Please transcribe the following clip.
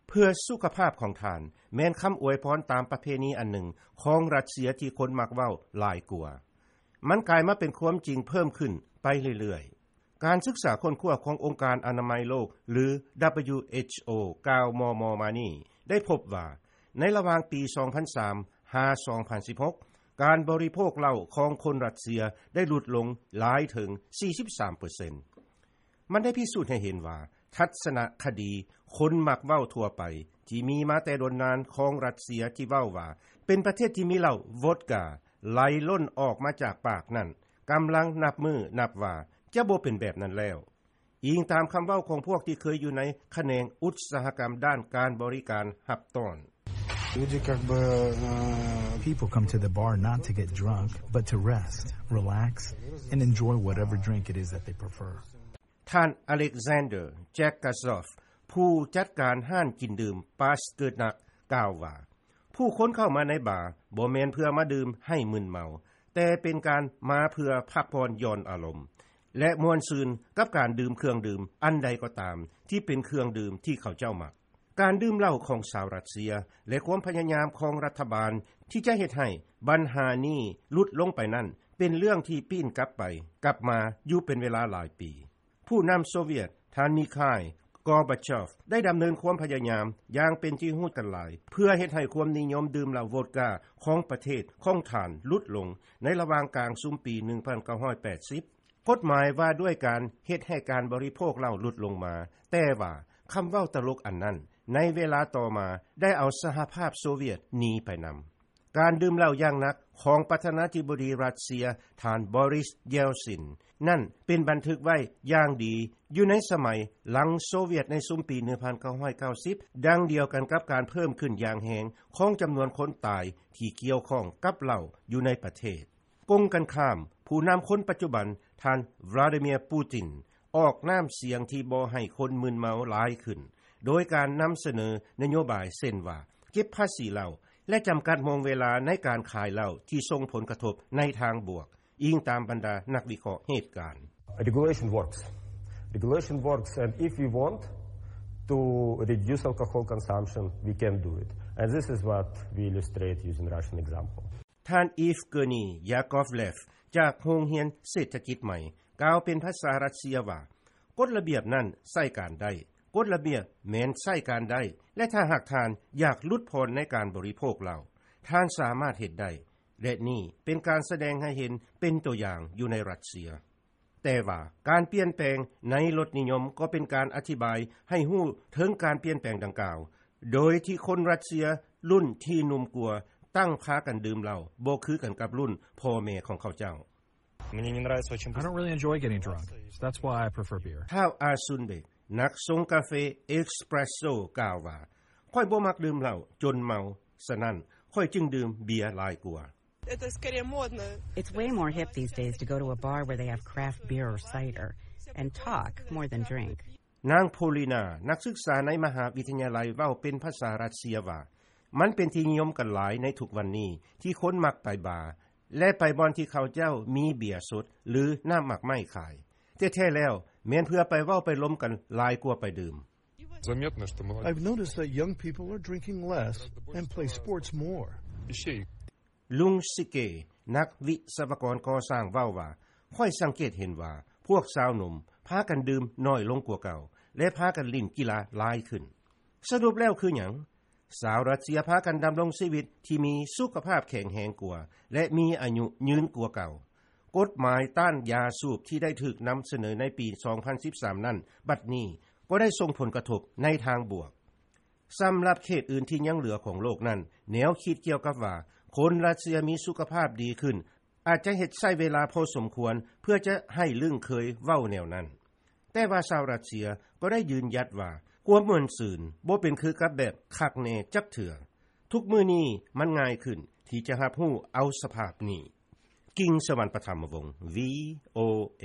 ເພື່ອສຸຂະພາບຂອງທ່ານ ແມ່ນຄຳອວຍພອນຕາມປະເພນີອັນໜຶ່ງຂອງຣັດເຊຍທີ່ຄົນມັກເວົ້າຫຼາຍກວ່າ. ມັນກາຍມາເປັນຄວາມຈິງເພີ່ມຂຶ້ນໄປເລື້ອຍໆ. ການສຶກສາຄົ້ນຄວ້າຂອງອົງການອະນາໄມໂລກ ຫຼື WHO ກ່າວມໍ່ໆມານີ້ ໄດ້ພົບວ່າ ໃນລະຫວ່າງປີສອງພັນສາມຫາສອງພັນສິບຫົກ ການບໍລິໂພກເຫຼົ້າຂອງຄົນຣັດເຊຍໄດ້ຫຼຸດລົງຫຼາຍເຖິງສີ່ສິບສາມເປີເຊັນ. ມັນໄດ້ພິສູດໃຫ້ເຫັນວ່າ ທັດສະນະຄະດີຄົນມັກເວົ້າທົ່ວໄປ ທີ່ມີມາແຕ່ດົນນານຂອງຣັດເຊຍທີ່ເວົ້າວ່າ ເປັນປະເທດທີ່ມີເຫຼົ້າໂວດກາໄຫຼລົ້ນອອກມາຈາກປາກນັ້ນ ກຳລັງນັບມື້ນັບວາຈະບໍ່ເປັນແບບນັ້ນແລ້ວ, ອີງຕາມຄຳເວົ້າຂອງພວກທີ່ເຄີຍຢູ່ໃນຂະແໜງອຸດສາຫະກຳດ້ານການບໍລິການຮັບຕ້ອນ. Люди как бы, э, People come to the bar not to get drunk, but to rest, relax, and enjoy whatever drink it is that they prefer. ທ່ານ Alexander Jagazov ຜູ້ຈັດການຮ້ານກິນດື່ມ Pasternak ກ່າວວ່າ ຜູ້ຄົນເຂົ້າມາໃນບາບໍ່ແມ່ນເພື່ອມາດື່ມໃຫ້ມຶນເມົາ, ແຕ່ເປັນການມາເພື່ອພັກຜ່ອນຢ່ອນອາລົມ ແລະ ມ່ວນຊື່ນກັບການດື່ມເຄື່ອງດື່ມອັນໃດກໍຕາມທີ່ເປັນເຄື່ອງດື່ມທີ່ເຂົາເຈົ້າມັກ. ການດື່ມເຫຼົ້າຂອງຊາວຣັດເຊຍ ແລະ ຄວາມພະຍາຍາມຂອງລັດຖະບານທີ່ຈະເຮັດໃຫ້ບັນຫານີ້ຫຼຸດລົງໄປນັ້ນ ເປັນເລື່ອງທີ່ປີ້ນກັບໄປກັບມາຢູ່ເປັນເວລາຫຼາຍປີ. ຜູ້ນຳໂຊວຽດ ທ່ານ Mikhail Gorbachev ໄດ້ດຳເນີນຄວາມພະຍາຍາມຢ່າງເປັນທີ່ຮູ້ກັນຫຼາຍ ເພື່ອເຮັດໃຫ້ຄວາມນິຍົມດື່ມເຫຼົ້າໂວດກາຂອງປະເທດຂອງທ່ານຫຼຸດລົງໃນລະຫວ່າງກາງຊຸມປີໜຶ່ງພັນເກົ້າຮ້ອຍແປດສິບ. ກົດໝາຍວ່າດ້ວຍການເຮັດໃຫ້ການບໍລິໂພກເຫຼົ້າຫຼຸດລົງມາ, ແຕ່ວ່າຄຳເວົ້າຕະຫຼົກອັນນັ້ນ ໃນເວລາຕໍ່ມາໄດ້ເອົາສະຫະພາບໂຊວຽດໜີໄປນຳ. ການດື່ມເຫຼົ້າຢ່າງໜັກຂອງປະທານາທິບໍດີຣັດເຊຍ ທ່ານ Boris Yeltsin ນັ້ນເປັນບັນທຶກໄວ້ຢ່າງດີຢູ່ໃນສະໄໝຫຼັງໂຊວຽດໃນຊຸມປີໜຶ່ງພັນເກົ້າຮ້ອຍເກົ້າສິບ ດັ່ງດຽວກັນກັບການເພີ່ມຂຶ້ນຢ່າງແຮງຂອງຈຳນວນຄົນຕາຍທີ່ກ່ຽວຂ້ອງກັບເຫຼົ້າຢູ່ໃນປະເທດ. ກົງກັນຂ້າມ, ຜູ້ນຳຄົນປັດຈຸບັນ ທ່ານ Vladimir Putin ອອກນ້ຳສຽງທີ່ບໍ່ໃຫ້ຄົນມຶນເມົາຫຼາຍຂຶ້ນ ໂດຍການນຳສະເໜີນະໂຍບາຍເຊັ່ນວ່າ ເກັບພາສີເຫຼົ້າ ແລະ ຈຳກັດໂມງເວລາໃນການຂາຍເຫຼົ້າທີ່ສົ່ງຜົນກະທົບໃນທາງບວກ, ອີງຕາມບັນດານັກວິເຄາະເຫດການ. Regulation works. Regulation works, and if we want to reduce alcohol consumption, we can do it. And this is what we illustrate using Russian example. ທ່ານ Evgeny Yakovlev ຈາກໂຮງຮຽນເສດຖະກິດໃໝ່ ກ່າວເປັນພາສາຣັດເຊຍວ່າ ກົດລະບຽບນັ້ນໃຊ້ການໄດ້, ກົດລະບຽບແມ່ນໃຊ້ການໄດ້ ແລະ ຖ້າຫາກທ່ານຢາກຫຼຸດຜ່ອນໃນການບໍລິໂພກເຫຼົ້າ, ທ່ານສາມາດເຮັດໄດ້ ແລະ ນີ້ເປັນການສະແດງໃຫ້ເຫັນເປັນຕົວຢ່າງຢູ່ໃນຣັດເຊຍ. ແຕ່ວ່າການປ່ຽນແປງໃນລົດນິຍົມກໍເປັນການອະທິບາຍໃຫ້ຮູ້ເຖິງການປ່ຽນແປງດັ່ງກ່າວ, ໂດຍທີ່ຄົນຣັດເຊຍລຸ້ນທີ່ໜຸ່ມກວ່າ ຕັ້ງພາກັນດື່ມເຫຼົ້າບໍ່ຄືກັນກັບລຸ້ນພໍ່ແມ່ຂອງເຂົາເຈົ້າ. Мне не нравится очень I don't really enjoy getting drunk, so that's why I prefer beer. ທ້າວ ອາຊຸນເບກ ນັກຊົງກາເຟເອັສເປຣສໂຊ ກ່າວວ່າ ຂ້ອຍບໍ່ມັກດື່ມເຫຼົ້າຈົນເມົາ, ສະນັ້ນ ຂ້ອຍຈຶ່ງດື່ມເບຍຫຼາຍກວ່າ. Это скорее модно. It's way more hip these days to go to a bar where they have craft beer or cider and talk more than drink. ນາງ ໂພລີນາ ນັກສຶກສາໃນມະຫາວິທະຍາໄລເວົ້າເປັນພາສາຣັດເຊຍວ່າ ມັນເປັນທີ່ນິຍົມກັນຫຼາຍໃນທຸກວັນນີ້ ທີ່ຄົນມັກໄປບາ ແລະ ໄປບ່ອນທີ່ເຂົາເຈົ້າມີເບຍສົດ ຫຼື ນ້ຳໝາກໄມ້ຂາຍ. ແທ້ໆແລ້ວ ແມ່ນເພື່ອໄປເວົ້າໄປລົມກັນຫຼາຍກວ່າໄປດື່ມ. Заметно, что молодёжь I've noticed that young people are drinking less and play sports more. ລຸງຊິເກ ນັກວິສະວະກອນກໍ່ສ້າງເວົ້າວ່າ ຂ້ອຍສັງເກດເຫັນວ່າພວກຊາວໜຸ່ມພາກັນດື່ມໜ້ອຍລົງກວ່າເກົ່າ ແລະ ພາກັນຫຼິ້ນກິລາຫຼາຍຂຶ້ນ. ສະຫຼຸບແລ້ວຄືຫຍັງ? ຊາວຣັດເຊຍພາກັນດຳລົງຊີວິດທີ່ມີສຸຂະພາບແຂງແຮງກວ່າ ແລະ ມີອາຍຸຍືນກວ່າເກົ່າ. ກົດໝາຍຕ້ານຢາສູບທີ່ໄດ້ຖືກນຳສະເໜີໃນປີສອງພັນສິບສາມນັ້ນ ບັດນີ້ກໍໄດ້ສົ່ງຜົນກະທົບໃນທາງບວກ. ສຳລັບເຂດອື່ນທີ່ຍັງເຫຼືອຂອງໂລກນັ້ນ, ແນວຄິດກ່ຽວກັບວ່າຄົນຣັດເຊຍມີສຸຂະພາບດີຂຶ້ນ ອາດຈະເຮັດໃຊ້ເວລາພໍສົມຄວນເພື່ອຈະໃຫ້ລຶ້ງເຄີຍເວົ້າແນວນັ້ນ. ແຕ່ວ່າຊາວຣັດເຊຍກໍໄດ້ຢືນຢັດວ່າ ຄວາມມ່ວນຊື່ນບໍ່ເປັນຄືກັບແບບຄັກແນ່ຈັກເທື່ອ. ທຸກມື້ນີ້ມັນງ່າຍຂຶ້ນທີ່ຈະຮັບຮູ້ເອົາສະພາບນີ້. ກິງ ສະຫວັນປະຖຳມະວົງ ວີໂອເອ.